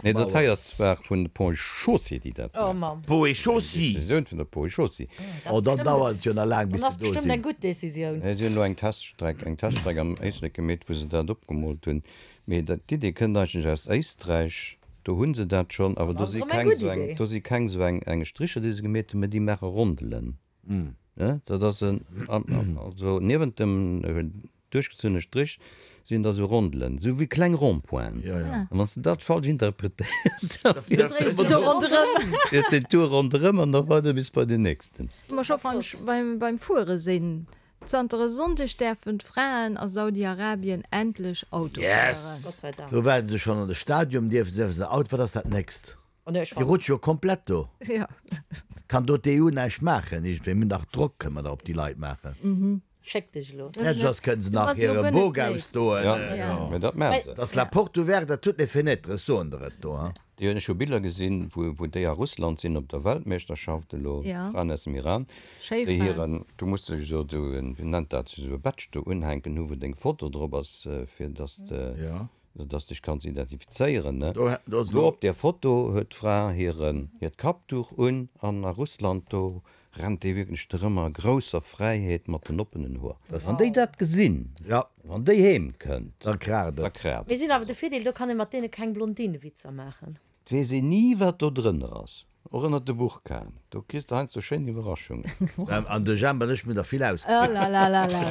Nee, dat hei ass zwar vun de Ponts et Chaussées, déi dat
Oh
maachen.
Mamm.
Ponts et
Eng
Chaussées.
Decisioun vun der Ponts et Chaussées.
Dat
Oh,
ass
dann
bestëmmt,
dauert et jo nach laang, bis
dann
se
ass
do
bestëmmt
sinn.
eng gutt Decisioun.
Si hunn elo eng Teststreck, eng Teststreck am Éislek gemeet, wou se dat opgemoolt hunn. Mee dat, d'Idee kënnt eigentlech aus Éisträich. Do hu se dat schonn, awer
Dann
do
ass
si
et erëm eng
keng
gutt
esou eng,
Idee.
do si keng esou eng, eng Stricher, déi se gemeet hunn, mee déi maache Rondelen. Ne, dat ass en, also niewent dem duerchgezunne Strich sinn da sou Rondelen, sou wéi kleng Rond-pointen. An wann s de dat falsch interpretéiers, da
dréis de do ronderëm.
Fiers den Tour ronderëm an da weider bis bei den nächsten.
Wa mer scho beim Fuere sinn, Zanter e Sonndeg däerfen d'Fraen a Saudi-Arabien endlech Auto fueren.
Gott sei Dank.
Do waarden se schonn an de Stadium, dierfe se Auto, wat ass dat nächst? Déi rutsche jo komplett do. Kann do d'EU näischt maachen iergendwéi? Mir hunn dach Drock, kënne mer dach op déi Leit maachen.
Schéck dech elo.
Fäerdeg ass, kënne se nach hire Bok ausdoen.
Mä dat maache se.
Dat ass la porte ouverte à toutes les fenêtres, ech soen der et do.
Déi hunn, ech hu Biller gesinn, wou déi a Russland sinn op der Weltmeeschterschaft elo, d'Fraen aus dem Iran, déi hiren, du muss dech esou en, wéi nennt dat, esou e Badge do unhänken hu wou deng Foto drop ass, fir datt de Dass dech kanns identifizéieren, ne? Do op där Foto huet d'Fra hiren, hiert Kappduch un an a Russland, do rennt déi wierklech drëm a grousser Fräiheet mat den oppenen Hoer. Wann déi dat gesinn, wann déi heem kënnt,
da kraacht
et. Da kraacht
Mir
et.
sinn awer de Virdeel, do kann ee mat deene keng Blondinewitzer maachen.
Et weess een ni, wat do drënner ass. Och ënnert de Burkaen, do kriss de heiansdo schéin Iwwerraschungen.
An de Jemp an ech mir der vill ausgekritt.
Olalalala.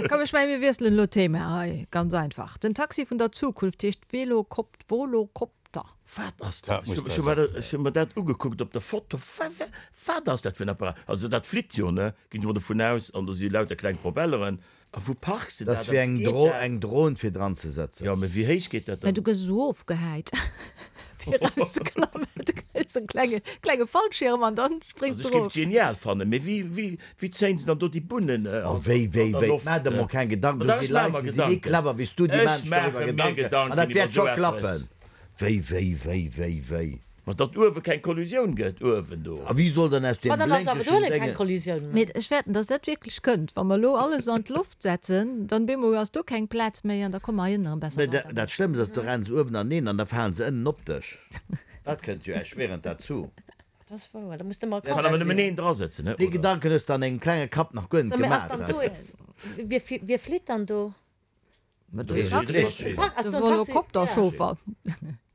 Komm, ech mengen, mir wiesselen elo d'Thema hei. Ganz einfach, Den Taxi vun der Zukunft heescht Velokopt, Volocopter.
Wat ass dat? Ech hu mer dat ugekuckt op der Foto. Wat ass dat fir en Apparat? Also dat flitt jo, ne? Ginn ech mol dovun aus. An do si lauter kleng Propelleren. A wou parks de
Dat
dat?
ass
A
wéi
wéi
eng
geet
Dro,
dat?
eng Dron fir dran ze setzen.
Jo, mee wéi héich geet dat
Mä
dann?
du gëss esou ofgehäit fir erauszeklammen. Du kriss en klenge, klenge Fallschirm an dann spréngs
Also
du
ech géif
erof.
et genial fannen, mee wéi, wéi, wéi zéien se dann do déi Bunnen
Oh
an,
wéi, wéi,
an der
wéi,
Loft?
maach der mol keng Gedanken,
Ma
do
dach,
si
ech maache
Leit,
mer
déi si méi
Gedanken.
clever wéi s du, déi
Ech
maachen sech doriwwer
maache mir
Gedanken an dat
Gedanken iwwer
wäert scho
esou eppes.
klappen. Wéi, wéi, wéi, wéi, wéi.
Ma datt uewe keng Kollusioun gëtt, uewen do.
A wie soll dann aus
Ma
deem
dann ass awer
blénkegen
dohinne keng
Déngen.
Kollisioun méi.
Mee ech fäerten, datt dat wierklech kënnt. Wa mer elo alles an d'Loft setzen, dann bemol ass do keng Plaz méi an da komme mer heiënne erëm besser
Mee
weider.
dat Schlëmmst ass, do rennen se uewen aneen an da falen se ënnen op dech. Dat kënnt jo erschwierend derzou.
Dat ass wouer, da muss de mol
Kann awer nëmmen een drasëtzen, ne?
Dee Gedanken hues de an dengem klenge Kapp nach guer net
So, mee ass
gemaach.
dann do, wie, wie flitt dann do?
De Volocopter-Chauffer.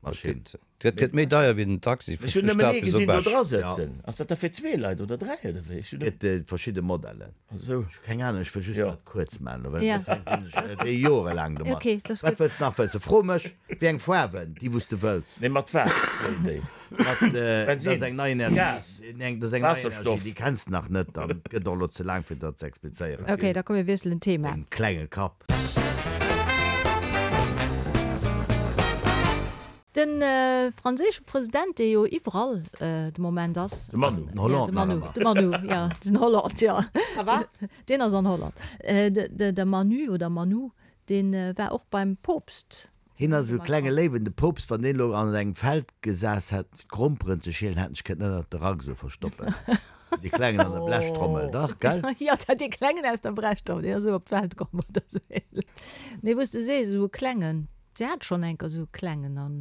Maschinn.
Dat gëtt méi deier wéi den Taxi
Ech
vun
hunn nëmmen
Stad
ee
bis op
gesinn do
Esch.
dra sëtzen. Ass dat da fir zwee Leit oder dräi oder wéi? Ech hunn
Gëtt verschidde Modellen.
Esou.
Ech hu keng Ahnung, ech wëll just
Jo.
dat kuerz maachen, well
Ja.
soss hänken ech déi jorelaang domat.
Okay, dat ass
Wat
gutt.
wëlls de nach wëssen? Fro mech, wéi eng Faarwen, déi wou s de wëlls.
Nee, mat wat fléien déi?
Mat, dat
Bensin,
ass eng nei Energie,
Gas,
eng, dat ass eng nei Energie,
Waasserstoff.
déi kenns de nach net an et gëtt och elo ze laang fir dat ze explizéieren.
Okay, da komm mir wiesselen d'Thema.
Dengem klenge Kapp.
De franséische President, dee jo iwwerall de Moment ass.
De Manu.
Den Hollande
De Manu,
nach ëmmer.
de Manu, jo, den Hollande, jo.
Ça va?
Deen ass an Holland. De Manu oder Manou, dee war och beim Poopst.
Hien ass esou e klenge Léiwen. De Poopst, wann deen elo an engem Feld gesass hätt, fir d'Gromperen ze schielen, hätt en sech kënnen ënnert de Rack esou verstoppen. Wéi dee Klengen an der Blechtrommel, dach, gell?
Jo, dat dee Klengen aus der Brechtrommel, deen ass esou op d'Welt komm oder esou ähnlech. Mee wou s de sees, esou e Klengen, si hat schonn enker esou e Klengen an.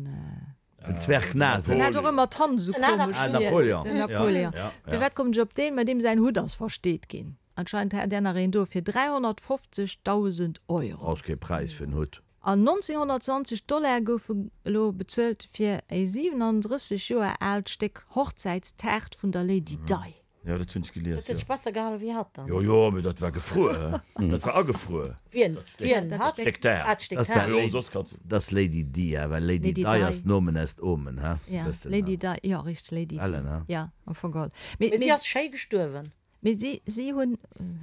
Den Zwerg Nase.
Den hat och ëmmer d'Hand esou komesch.
Ah, Napoleon.
Den Napoleon. Firwat kommen ech op deen? Mä deem säin Hutt ass versteet ginn. Anscheinend hat där nach een do fir 350.000 Euro.
Ass kee Präis fir en Hutt.
An 1920 Dollar goufe elo bezuelt fir e 37 Joer aalt Stéck Hochzäitstaart vun der Lady Di.
Jo, dat hunn ech gelies,
Dat huet sech besser gehalen wéi hatt dann.
Jo, jo, mee dat war gefruer, he? Dat war agefruer.
Wien? Wien?
Dat
Hatt?
Stéck Taart.
Ah, d'Stéck
Das
Taart.
Jo, soss kanns du.
Das Lady Di, he? Well Lady
Lady
Di
Di.
ass Nomen est Omen, he?
Ja,
Bëssen,
Lady
he?
Di, jo, richteg, Lady Di.
Ellen, he?
Ja, am Fong geholl. Mee,
Mee si
mee,
ass schéi gestuerwen.
mee si, si hunn,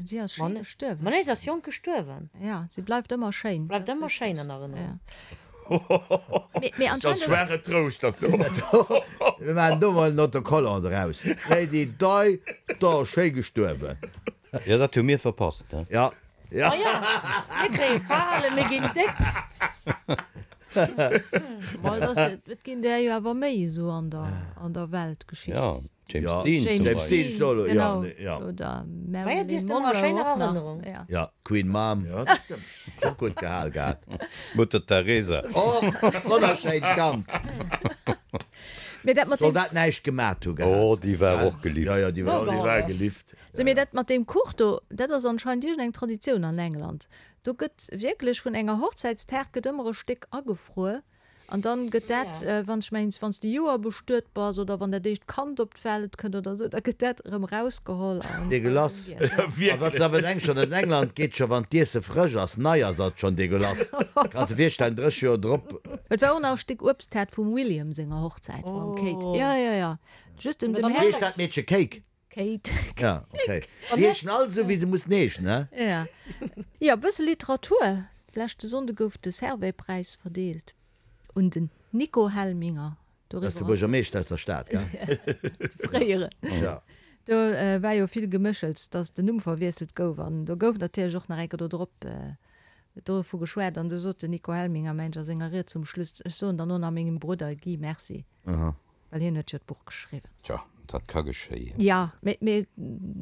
si ass schéi
Ma
gestuerwen.
ma nee, si ass jonk gestuerwen.
Ja, si bleift ëmmer schéin.
Bleift ëmmer schéin an Erënnerung.
Ja. Mee, mee
Dat ass
anscheinend ass.
schwere Trouscht, dat do.
Mir maachen do mol en Autocollant draus. Lady Di, da schéi gestuerwen.
Jo, dat hu mir verpasst, ne?
Ja, ja.
Ma ja, mir kréie Falen, mir ginn déck.
Ma et ass, et ginn där jo awer méi esou an der, an der Weltgeschicht.
Ja, James
Ja,
Dean zum
James
James
Beispill.
Dean,
Dean,
ja,
genau.
ja.
Oder
Ma ja, déi
Marilyn
ass ëmmer a
Monroe
schéiner
och nach.
Erënnerung.
Ja.
Ja, Queen Mom.
Ja, dat stëmmt.
Scho gutt gehal gehat.
Mutter Teresa.
Och, wonnerschéint Kand.
Mee dat mat
Soll
deem.
dat näischt gemat hu gehat.
Oh, déi war och gelift.
Ja, ja, déi war
Ja, déi war gelift.
Sou, mee dat mat deem Kuch do, dat ass anscheinend iergendeng Traditioun an England. Do gëtt wierklech vun enger Hochzäitstaart gëtt ëmmer e Stéck agefruer an dann gëtt dat, wann ech mengs, wann s de Joer bestuet bass oder wann dat éischt Kand op d'Welt kënnt oder esou, da gëtt dat erëm erausgeholl an
Degueulass.
giess.
A wat s awer denks schonn, an England geet scho wann d'Iesse frësch ass, nei ass, ass et schonn degueulass. Kanns de virstellen, 30 Joer drop.
Et war och nach e Stéck Uebsttaart vum William senger Hochzäit mam Kate. Jo, jo, jo, just dem
Mee dann
dem
Wéi heescht dat Meedche? Cake?
Kate.
Ja, okay. Si heeschen all esou, wéi se mussen heeschen, he?
Ja. Jo, e bësse Literatur. Leschte Sonnde gouf de Servais-Präis verdeelt un den Nico Helminger.
Dat ass de Buergermeeschter aus der Stad, gell?
De fréieren.
Ja.
Do war jo vill Geméchels, datt den Numm verwiesselt gouf. An do gouf natierlech och nach eng Kéier do drop dovu geschwat. An du sot den Nico Helminger, mengt ech, a senger Ried zum Schluss, Ech soen dann och nach mengem Brudder Guy Merci.
Aha.
Well hien huet jo d'Buch geschriwwen.
Tja, dat ka geschéien.
Jo, mee, mee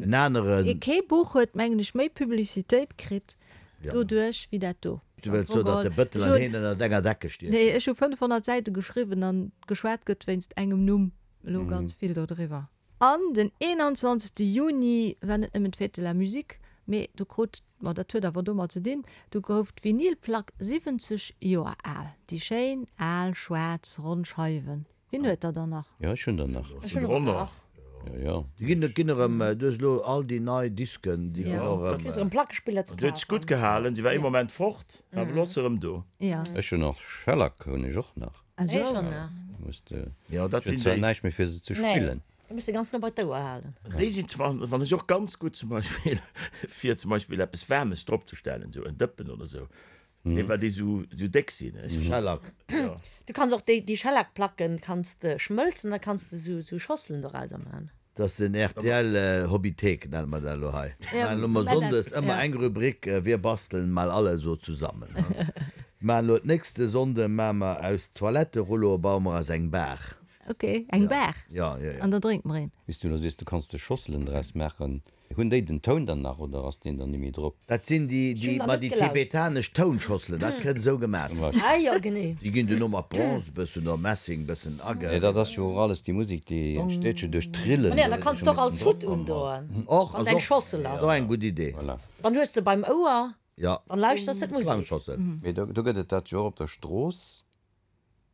En aneren.
kee Buch huet, mengen ech, méi Publicitéit kritt doduerch wéi dat do.
Du wëlls soen, datt de Bëttel an heen ënnert enger Decke stiechen?
Nee, ech hu 500 Säite geschriwwen an geschwat gëtt wéinst engem Numm elo ganz vill dodriwwer. An den 21. Juni war net nëmmen d'Fête de la Musique, mee do krut, ma dat huet awer domat ze dinn, do gouf d'Vinylplack 70 Joer al. Déi schéin al schwaarz ronn Scheiwen. Wien huet der dann nach?
Jo, ech hunn der nach.
Ech hunn och nach.
Jo, jo.
Déi ginn, et ginn erëm, du hues elo all déi nei Disken, déi ginn och
Da
erëm.
kriss de erëm Plackespiller ze
Déi huet sech gutt
kafen.
gehalen, déi war ee Moment fort, awer elo ass se erëm do.
Jo.
Ech hunn och Shellac hunn ech och nach.
Ech och nach.
Muss de,
Jo, dat
ech hunn
sinn
zwar
déi.
näischt méi fir se ze
Nee,
spillen.
du muss se ganz no bei d'Ouer halen.
Déi sinn zwar, wann ech och ganz gutt zum Beispill, fir zum Beispill eppes Waarmes dropzestellen, esou en Dëppen oder esou, Nee, well déi sou sou déck sinn. Ech
Schellack.
Ja.
Du kanns och déi déi Schellackplacken kanns de schmëlzen, da kanns de sou sou Schosselen dorauser man.
Dat ass den rtl Hobbythek nenne mer dat elo hei. Mir maachen elo mol Sonndes ëmmer eng Rubrik Wir basteln mal alle so zusammen. Mir maachen elo d'nächste Sonnde maache mer aus Toiletterulloe baue mer eis eng Bar.
Ok, eng Bar?
Ja, ja, ja.
An da drénkt mer een.
Wéi s du elo sees, du kanns de Schosselen draus maachen. Hunn déi den Toun dann nach oder ass deen dann nimmi drop?
Dat sinn déi,
Ech hunn
déi,
der
ma
net
déi
gelauscht.
tibetanesch Tounschosselen, dat kënnt esou gemat.
Ah jo, genee.
Déi ginn duerno mat Bronze bëssen oder Messing bëssen age.
Nee, dat ass jo och alles déi Musek, déi entsteet jo duerch d'Trillen.
Ma nee, an da kanns de och als Hutt undoen,
Och,
wann
ass
et eng
och,
Schossel ass.
och eng gutt Idee.
Voilà.
Dann hues de beim Ouer,
Ja,
dann lauschters de d'Musek.
Klangschossel.
Mee do, do gëtt et dat jo och op der Strooss.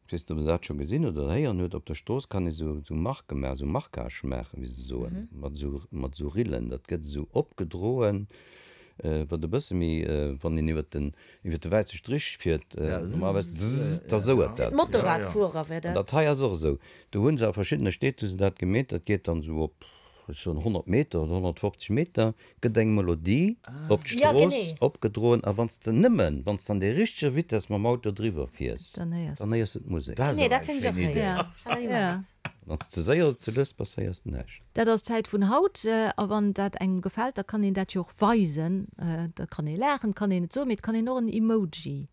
Ech weess net, ob Der dat scho gesinn oder héieren hutt, op der Strooss kann ee sou sou Marke maachen, sou Marquage maachen, wéi se soen, mat esou mat esou Rillen. Dat gëtt esou opgedroen, wat e bësse méi, wann een iwwer den iwwer de wäisse Strich fiert, normalerweis zzzz, da souert dat.
Fir d'Motorradfuerer wär
An
dat.
dat hei ass och esou. Do hu se a verschiddene Stied hu se dat gemeet, dat geet dann esou op, ech soen 100 Meter oder 150 Meter, gëtt eng Melodie op
Ja,
d'Strooss
genee.
opgedroen a wann s de nëmmen, wann s de an der richteger Vitess mam Auto driwwer fiers,
Dann héiers
dann
de.
héiers de d'Musek.
Dat ass
Nee,
awer
dat
eng
hunn ech och
schéin Idee.
héieren.
Ja.
Ech fannen dat
Ja.
immens.
Wann s de ze séier oder ze lues bass, héiers de näischt.
Dat ass d'Zäit vun haut. A wann dat engem gefält, da kann een dat jo och weisen. Da kann ee laachen, kann een et soen, mee et kann een och en Emoji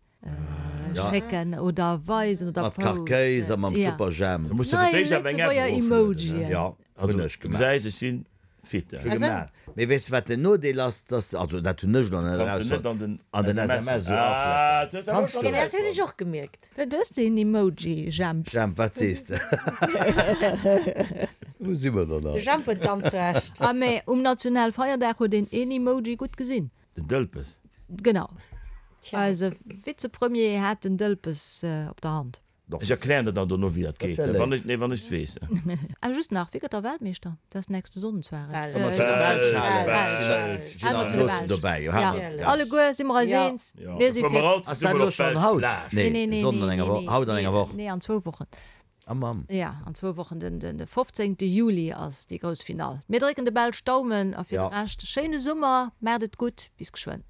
schécken oder weisen oder
Mat Karkéis a mam
Ja.
Superjhemp.
Da muss de
Nei
fir d'éischt awer eng App
Lëtzebuerger
eroflueden, ne?
Emojien.
Ja,
Also,
hunn ech
du
gemaach.
gesäis, ech sinn. Fit.
Scho gemaach. Mee weess de wat den Nodeel ass, dass, also dat hunn ech elo net erausfonnt, an den SMS esou aflackeren. Kanns du.
Dat hunn ech och gemierkt.
Du hues deen Emoji, Jemp.
Jemp, wat sees de?
Wou si mer dann
De Jemp huet ganz Recht.
Ah mee um Nationalfeierdag huet een een Emoji gutt gesinn.
Den Dëlpes.
Genau. Eise Vizepremier hat den Dëlpes op der Hand.
Ech erklären der dann dono wéi dat geet, wann ech, nee, wann ech et weess.
A just nach, wie gëtt da Weltmeeschter? Dat ass nächste Sonnden zwar.
Wa mer zu de Belsch halen,
hale mer zu de Belsch. Jo, alleguer si mer eis eens. Mir si fir.
Ass dat elo schonn haut? Nee, Sonnden an enger Woch, haut an enger Woch.
Nee, an zwou Wochen.
Ah Mamm.
Jo, an zwou Wochen, den 15. Juli ass déi grouss Finall. Mir drécken de Belsch d'Daumen a fir de Rescht, schéine Summer, maacht et gutt, bis geschwënn.